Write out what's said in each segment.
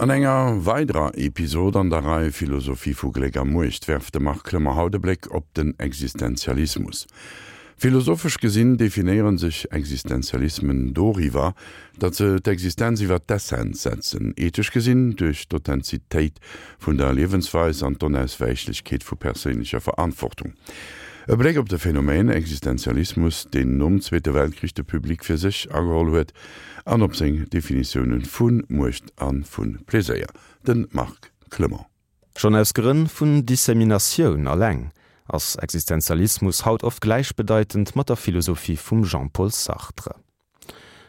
An enger weiderer Episod an der Rei Philosophie vu Gléck a Muecht werft de Marc Clement haut e Bléck op den Existenzialismus. Philosophesch gesinn definéiere sech Existenzialismen doriwwer, datt se d'Existenz iwwer d'Essenz setzen, ethesch gesinn duerch d'Authentizitéit vun der Liewensweis an d'Onauswäichlechkeet vu perséinlecher Verantwortung. E Bléck op de Phänomen Existenzialismus, deen nom Zweete Weltkrich de Public fir sech ageholl huet, an op seng Definitioune vu Muecht a vu Pleséier. De Marc Clement. Schonn aus Grënn vun Disseminatioun alleng ass Existenzialismus haut oft gläichbedeitend mat der Philosophie vum Jean-Paul Sartre.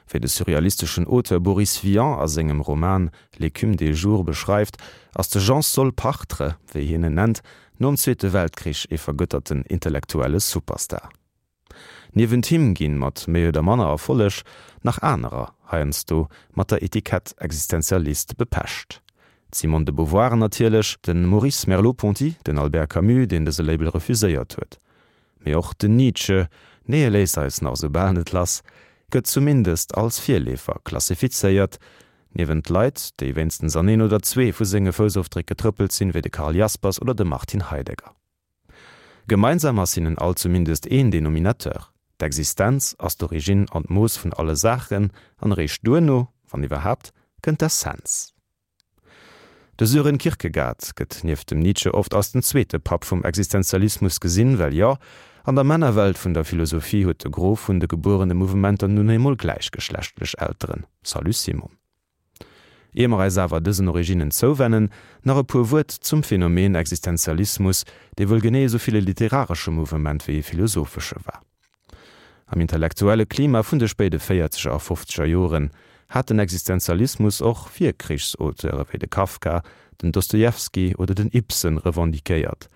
Wéi de surrealisteschen Auteur Boris Vian a sengem Roman L'écume des jours beschreift, ass de Jean-Saul Partre, wéi hien en nennt, nom Zweete Weltkrich ee vergëtterten intellektuelle Superstar. Niewent him ginn, mat méi oder manner Erfolleg, nach anerer heiansdo mat der Etikett Existenzialist bepecht. D'Simone de Beauvoir natierlech, de Maurice Merleau-Ponty, den Albert Camus, deen dëse Label refuséiert huet. Mee och den Nietzsche, nee e léisst eis nach esou bal net lass, gëtt zumindest als Virleefer klassifizéiert, niewent Leit, déi wéinstens an een oder zwee vu senge Foussofdréck getrëppelt sinn, wéi de Karl Jaspers oder de Martin Heidegger. Gemeinsam ass hinnen all zumindest een Denominateur, D'Existenz ass d'Origine an d'Mooss vun alle Saachen, an eréischt duerno, wann iwwerhaapt, kënnt d'Essenz. De Sören Kierkegaard gëtt nieft dem Nietzsche oft als den zweete Papp vum Existenzialismus gesinn, well jo, an der Männerwelt vun der Philosophie huet de Gros vun de gebuerene Mouvementer nun eemol gläichgeschlechtlech Elteren. Salut Simon. Ier mer eis awer dësen Originnen zouwennen, nach e puer Wuert zum Phänomen Existenzialismus, dee wuel genee esou vill e literaresche Mouvement wéi e philosophesche war. Am intellektuelle Klima vun de spéide véierzeger a fofzeger Joren hat den Existenzialismus och Virkrichsauteure wéi de Kafka, den Dostojewski oder den Ibsen revendiquéiert,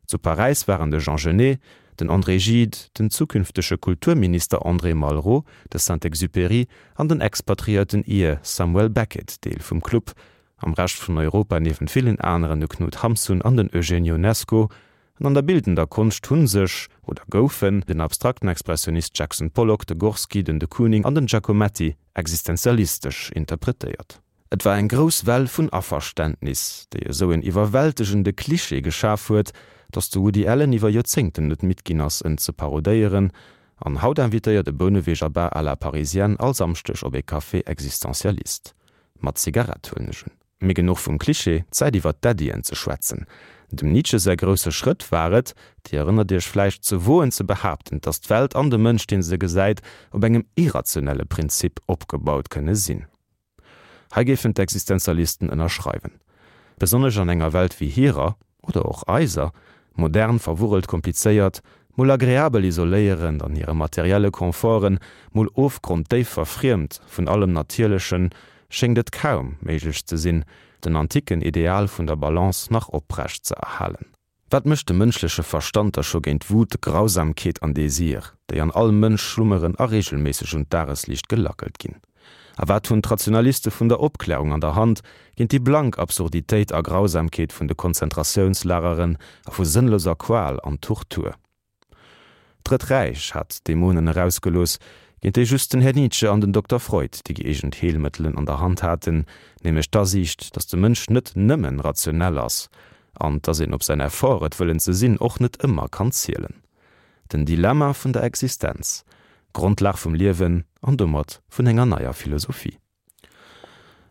Zu Paräis waren de Jean Genet, den André Gide, den zukünftege Kulturminister André Malraux, de Saint-Exupéry an den expatriéierten Ir Samuel Beckett Deel vum Club, am Rescht vun Europa niewent villen aneren de Knut Hamsun an den Eugène Ionesco. An an der bildender Konscht hu sech, oder goufen, den abstrakten Expressionist Jackson Pollock, de Gorsky, den de Kooning an den Giacometti existenzialistesch interpretéiert. Et war eng grouss Well vun Averständnis, déi esou en iwwerwältegende Klischee geschaf huet, datt de Woody Allen iwwer Joerzéngten net midd ginn ass, en ze parodéieren. An haut invitéiert e Bouneweger Bar à la parisienne all Samschdeg op ee Café existentialiste. Mat Zigarett, huelen ech un. Mee genuch vum Klischee, Zäit iwwer d'Äddien ze schwätzen. Dem Nietzsche säi grousse Schrëtt war et, Dir erënnert Iech vläicht, ze woen ze behaapten, datt d'Welt an de Mënsch, dee se gesäit, op engem irrationelle Prinzip opgebaut kënne sinn. Hei géifen d'Existenzialisten ënnerschreiwen. Besonnesch an enger Welt wéi hirer, oder och eiser, modern, verwurrelt, komplizéiert, mol agreabel isoléierend an hire materielle Conforten, mol ofgronddéif verfriemt vun allem Natierlechen, schéngt et kaum méiglech ze sinn, den antiken Ideal vun der Balance nach oprecht ze erhalen. Wat mécht de mënschleche Verstand da scho géint Wut, Grausamkeet an Désir, déi an all Mënsch schlummeren a regelméisseg un d'Dagesliicht gelackelt ginn? A wat hunn d'Rationaliste vun der Opklärung an der Hand géint déi blank Absurditéit a Grausamkeet vun de Konzentratiounslageren a vu sënnloser Qual an Tortur? D'Drëtt Räich hat d'Dämonen erausgelooss, géint déi just den Här Nietzsche an den Dokter Freud déi gëeegent Heelmëttelen an der Hand haten, nämlech d'Asiicht, datt de Mënsch net nëmmen rationell ass an datt een op säin Effort, et wëllen ze sinn, och net ëmmer kann zielen. Den Dilemma vun der Existenz, Grondlag vum Liewen an domat vun enger neier Philosophie.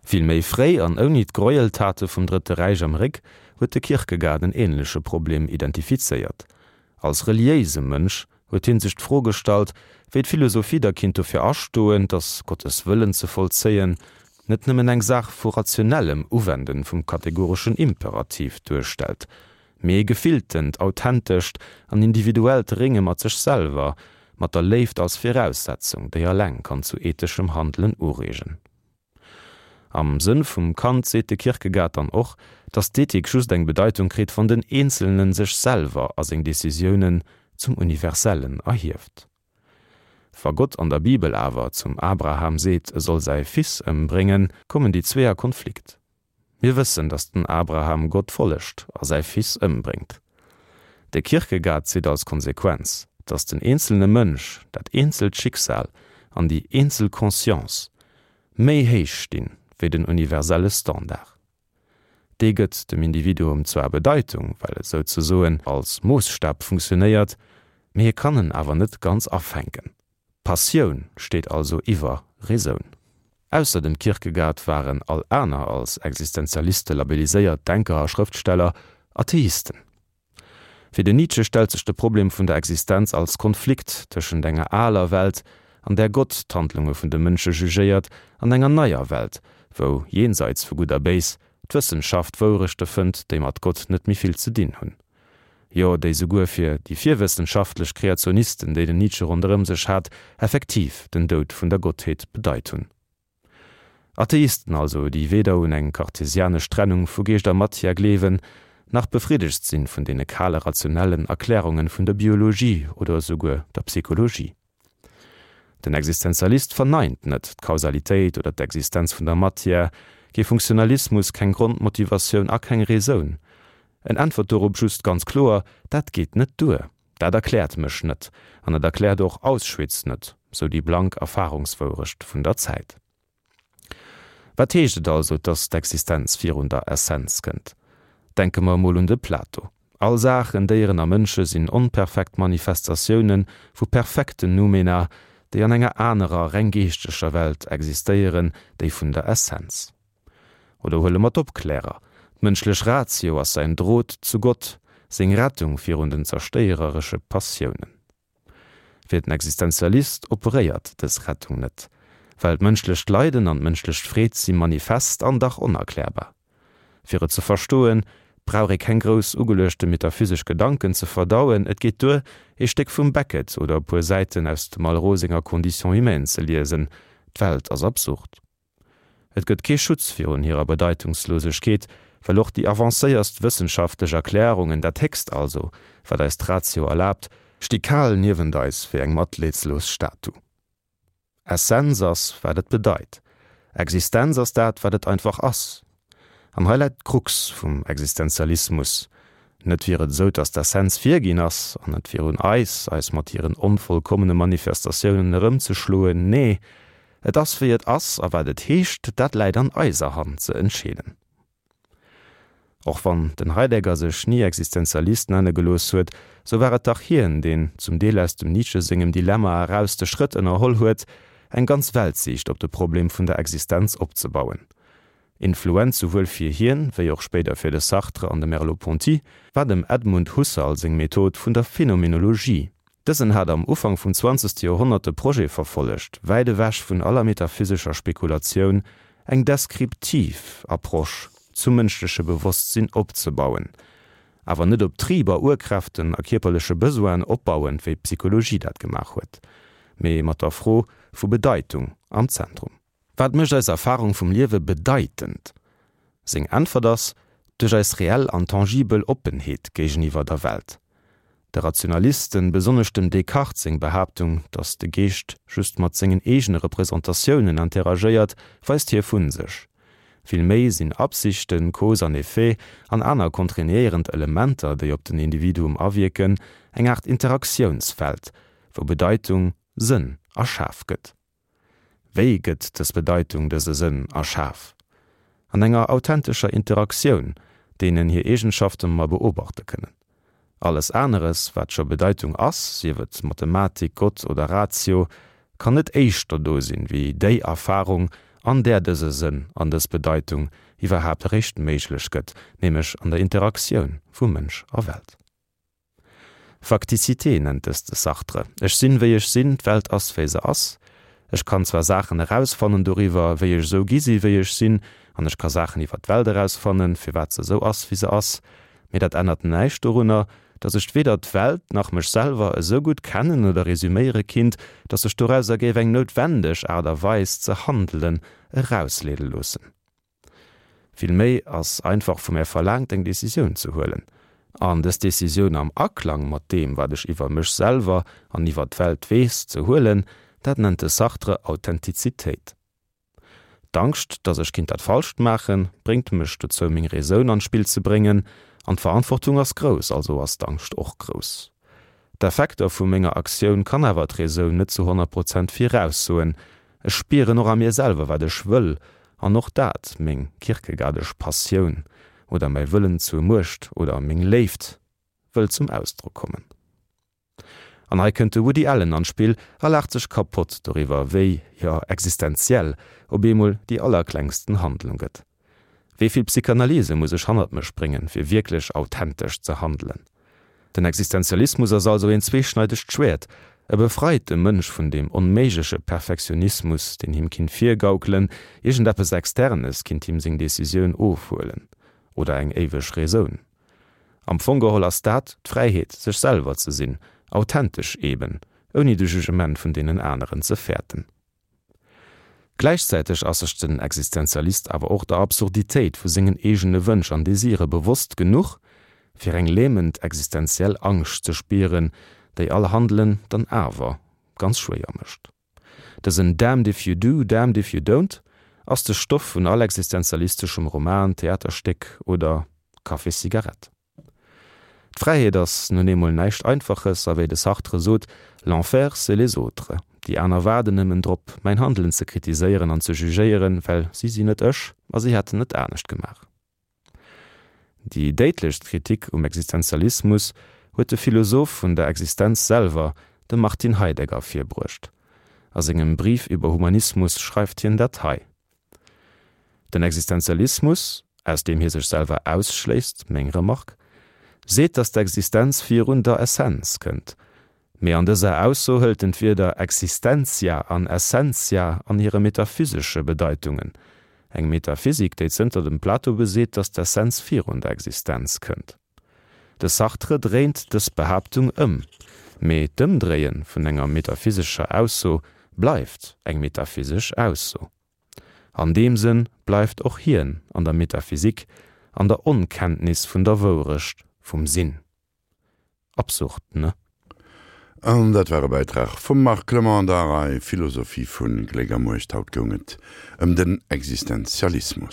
Vill méi fréi an ouni d'Gräueltate vum Drëtte Räich am Réck huet de Kierkegaard en änleche Problem identifizéiert. Als reliéise Mënsch huet hie sech d'Fro gestallt, wéi d'Philosophie da kinnt dofir astoen, datt Gottes Wëllen ze vollzéien net nëmmen eng Saach vu rationellem Uwenden vum kategoreschen Imperativ duerstellt, mee e gefilltent, authentescht an individuellt Rénge mat sech selwer, mat der Léift als Viraussetzung, déi alleng kann zu etheschem Handelen ureegen. Am Sënn vum Kant seet de Kierkegaard dann och, datt d'Ethik just eng Bedeitung kritt, wann den Eenzelnen sech selwer a seng Decisiounen zum Universellen erhieft. Wa Gott an der Bibel awer zum Abraham seet, e soll säi Fils ëmbréngen, kommen déi zwee a Konflikt. Mir wëssen, datt den Abraham Gott follegt a säi Fils ëmbréngt. De Kierkegaard zitt als Konsequenz, datt den eenzelne Mënsch, dat eenzelt Schicksal an déi eenzel Conscience méi héich stinn, wéi den universelle Standard. Dee gëtt dem Individuum zwar Bedeitung, well et souzesoen als Moossstab funktionéiert, mee hie kann en awer net ganz afänken. Passioun steet also iwwer Raison. Ausser dem Kierkegaard waren all aner als Existenzialiste labelliséiert Denker a Schrëftsteller Atheisten. Fir den Nietzsche stellt sech de Problem vun der Existenz als Konflikt tëschent enger aler Welt, an där Gott d'Handlunge vun de Mënsche jugéiert, an enger neier Welt, wou, jenseits vu Gutt a Béis, d'Wëssenschaft Wourechte fënnt, déi mat Gott net méi vill ze dinn hunn. Jo, déi souguer fir déi virwëssenschaftlech Kreationisten, déi den Nietzsche ronderëm sech hat, effektiv den Doud vun der Gottheet bedeit hunn. Atheisten also, déi weder un eng kartesianesch Trennung vu Geescht a Matière gleewen, nach befriddegt sinn vun deene kale rationellen Erklärungen vun der Biologie oder esouguer der Psychologie. Den Existenzialist verneint net d'Kausalitéit oder d'Existenz vun der Matière, kee Funktionalismus, keng Grondmotivatioun a keng Raison. En äntwert dorop just ganz kloer, Dat geet net duer. Dat erkläert mech net, an et erkläert och Auschwitz net, sou déi blank Erfahrungswourecht vun der Zäit. Wat heescht et also, dass d'Existenz virun der Essenz kënnt? Denke mer emol un de Plato. All Saachen, Déieren a Mënsche sinn onperfekt Manifestatioune vu perfekten Noumena, déi an enger anerer, reng geeschteger Welt existéieren, déi vun der Essenz. Oder huele mer d'Opklärer, D'mënschlech Ratio ass säin Drot zu Gott, seng Rettung virun den zerstéiereresche Passiounen. Fir den Existenzialist operéiert dës Rettung net, well d'mënschlecht Leiden an d'mënschlech Freed si manifest an dach onerklärbar. Fir et ze verstoen, brauch ee keng grouss ugeluechte metaphysesch Gedanken ze verdauen, et geet duer, ee Stéck vum Beckett oder e puer Säiten aus dem Malraux senger Condition humaine ze liesen, D'Welt ass absurd. Et gëtt kee Schutz virun hirer Bedeitungslosegkeet, well och déi avancéierst wëssenschaftlech Erklärungen, dat Héchst also, wat eis d'Ratio erlaabt, sti kal niewent eis wéi eng matleedslos Statu. Essenz ass, wat et bedeit. Existenz ass dat, wat et einfach ass. An hei läit d'Krux vum Existenzialismus. Net wier et esou, datt d'Essenz virginn ass an et wier un eis, eis mat hiren onvollkommene Manifestatiounen erëmzeschloen. Nee, et ass wéi et ass, a wat et heescht, dat läit an eiser Hand ze entscheeden. Och wann den Heidegger sech ni Existenzialist nenne gelooss huet, sou war et dach hien, deen, zum Deel aus dem Nietzsche sengem Dilemma eraus, de Schrëtt ënnerholl huet, eng ganz Weltsiicht op de Problem vun der Existenz opzebauen. Influenz souwuel fir hien, wéi och spéider fir de Sartre an de Merleau-Ponty, war dem Edmund Husserl seng Method vun der Phenomenologie. Dësen hat am Ufank vum zwanzegste Joerhonnert de Projet verfollegt, wäit ewech vun aller metaphysescher Spekulatioun, eng deskriptiv Approche zum mënschleche Bewosstsinn opzebauen, awer net op Triber, Urkräften a kierperleche Besoinen opbauend, wéi d'Psychologie dat gemaach huet, mee mat der Fro vu Bedeitung am Zentrum. Wat mécht eis Erfarung vum Liewe bedeitend? Seng Äntwert ass, Duerch eis reell an tangibel Oppenheet géigeniwwer der Welt. De Rationalisten, besonnesch dem Descartes seng Behaaptung, datt de Geescht just mat sengen eegene Representatiounen interagéiert, weist hie vu sech. Vill méi sinn Absichten, Cause an Effet an aner kontraignéierend Elementer, déi op den Individuum awierken, eng Aart Interaktiounsfeld, wou Bedeitung, Sënn erschaf gëtt. Wéi gëtt dës Bedeitung, dëse Sënn erschaf? An enger authentescher Interaktioun, deenen hir Eegenschafte mer beobachte kënnen. Alles aneres, wat scho Bedeitung ass, sief et Mathematik, Gott oder Ratio, kann net éischter do sinn, wéi déi Erfarung, an där dëse Sënn an dës Bedeitung iwwerhaapt eréischt méiglech gëtt, nämlech an der Interaktioun vu Mënsch a Welt. Facticité nennt dëst de Sartre. Ech sinn, wéi ech sinn, d'Welt ass, wéi se ass. Ech kann zwar Saachen erausfannen doriwwer, wéi ech esou gi si wéi ech sinn, an ech ka Saachen iwwer d'Welt erausfannen, firwat se esou ass, wéi se ass, mee dat ännert näischt dorunner, datt ech weder d'Welt nach mech selwer esou gutt kennen oder resüméiere kinnt, datt sech dorauser géif eng noutwendeg Aart a Weis ze handelen erausleede loossen. Villméi ass einfach vu mär verlaangt, eng Decisioun ze huelen. An dës Decisioun am Aklang mat deem, wat ech iwwer mech selwer an iwwer d'Welt weess, ze huelen, dat nennt de Sartre Authentizitéit. D'Angscht, datt ech kinnt dat Falscht maachen, bréngt mech dozou, meng Raison an d'Spill ze bréngen. An d'Verantwortung ass grouss, also ass d'Angscht och grouss. D'Effekter vu menger Aktioun kann awer d'Raison net zu 100 Prozent viraussoen. Ech spieren och a mir selwer, wat ech wëll, an och dat, meng kierkegaardesch Passioun. oder mäi Wëllen zur Muecht oder meng Léift wëll zum Ausdrock kommen. An hei kënnt de Woody Allen an d'Spill a laacht sech kapott doriwwer, wéi, jo, existenziell op eemol déi allerklengsten Handlung gëtt. Wéi vill Psychanalyse muss ech hannert mech bréngen, fir wierklech authentesch ze handelen? Den Existenzialismus ass also een zweeschneidegt Schwäert, E befreit de Mënsch vun deem onméigleche Perfektionismus, deen him kinnt virgaukelen, iergendeppes Externes kinnt him seng Decisioun ofhuelen oder eng éiweg Raisoun. Am Fong geholl ass dat d'Fräiheet, sech selwer ze sinn, authentesch eben, ouni de Jugement vun deenen aneren ze fäerten. Gläichzäiteg ass sech den Existenzialist awer och der Absurditéit vu sengen eegene Wënsch an Desire bewosst genuch, fir eng lähmend existenziell Angscht ze spieren, déi all Handelen dann awer ganz schwéier mécht. Dësen Damned if you do, damned if you don't ass de Stoff vun all existenzialisteschem Roman, Theaterstéck oder Café-Cigarette. D'Fräiheet ass nun eemol näischt Einfaches a wéi de Sartre sot, L'enfer, c'est les autres. Déi aner waarden nëmmen drop, mäin Handelen ze kritiséieren an ze jugéieren, well si sinn net ech a si hätten et anescht gemaach. Déi déidlechst Kritik um Existenzialismus huet de Philosoph vun der Existenz selwer, de Martin Heidegger, virbruecht. A sengem Brief über Humanismus schreift hien dat hei. Den Existenzialismus, aus deem hie sech selwer ausschléisst, meng Remark, seet, datt d'Existenz virun der Essenz kënnt. Mee an dëser Ausso hëlt en d'Wierder existentia an essentia an hire metaphysesche Bedeitungen, eng Metaphysik, déi zënter dem Plato beseet, datt d'Essenz virun der Existenz kënnt. De Sartre dréint dës Behaaptung ëm, mee d'Ëmdréie vun enger metaphysescher Ausso bleift eng metaphysesch Ausso. An deem Sënn bleift och hien an der Metaphysik, an der Onkenntnis vun der Wourecht vum Sinn. Absurd, ne? An dat war e Bäitrag vum Marc Clement an der Rei Philosophie vu Gléck a Muecht. Haut goung et ëm den Existenzialismus.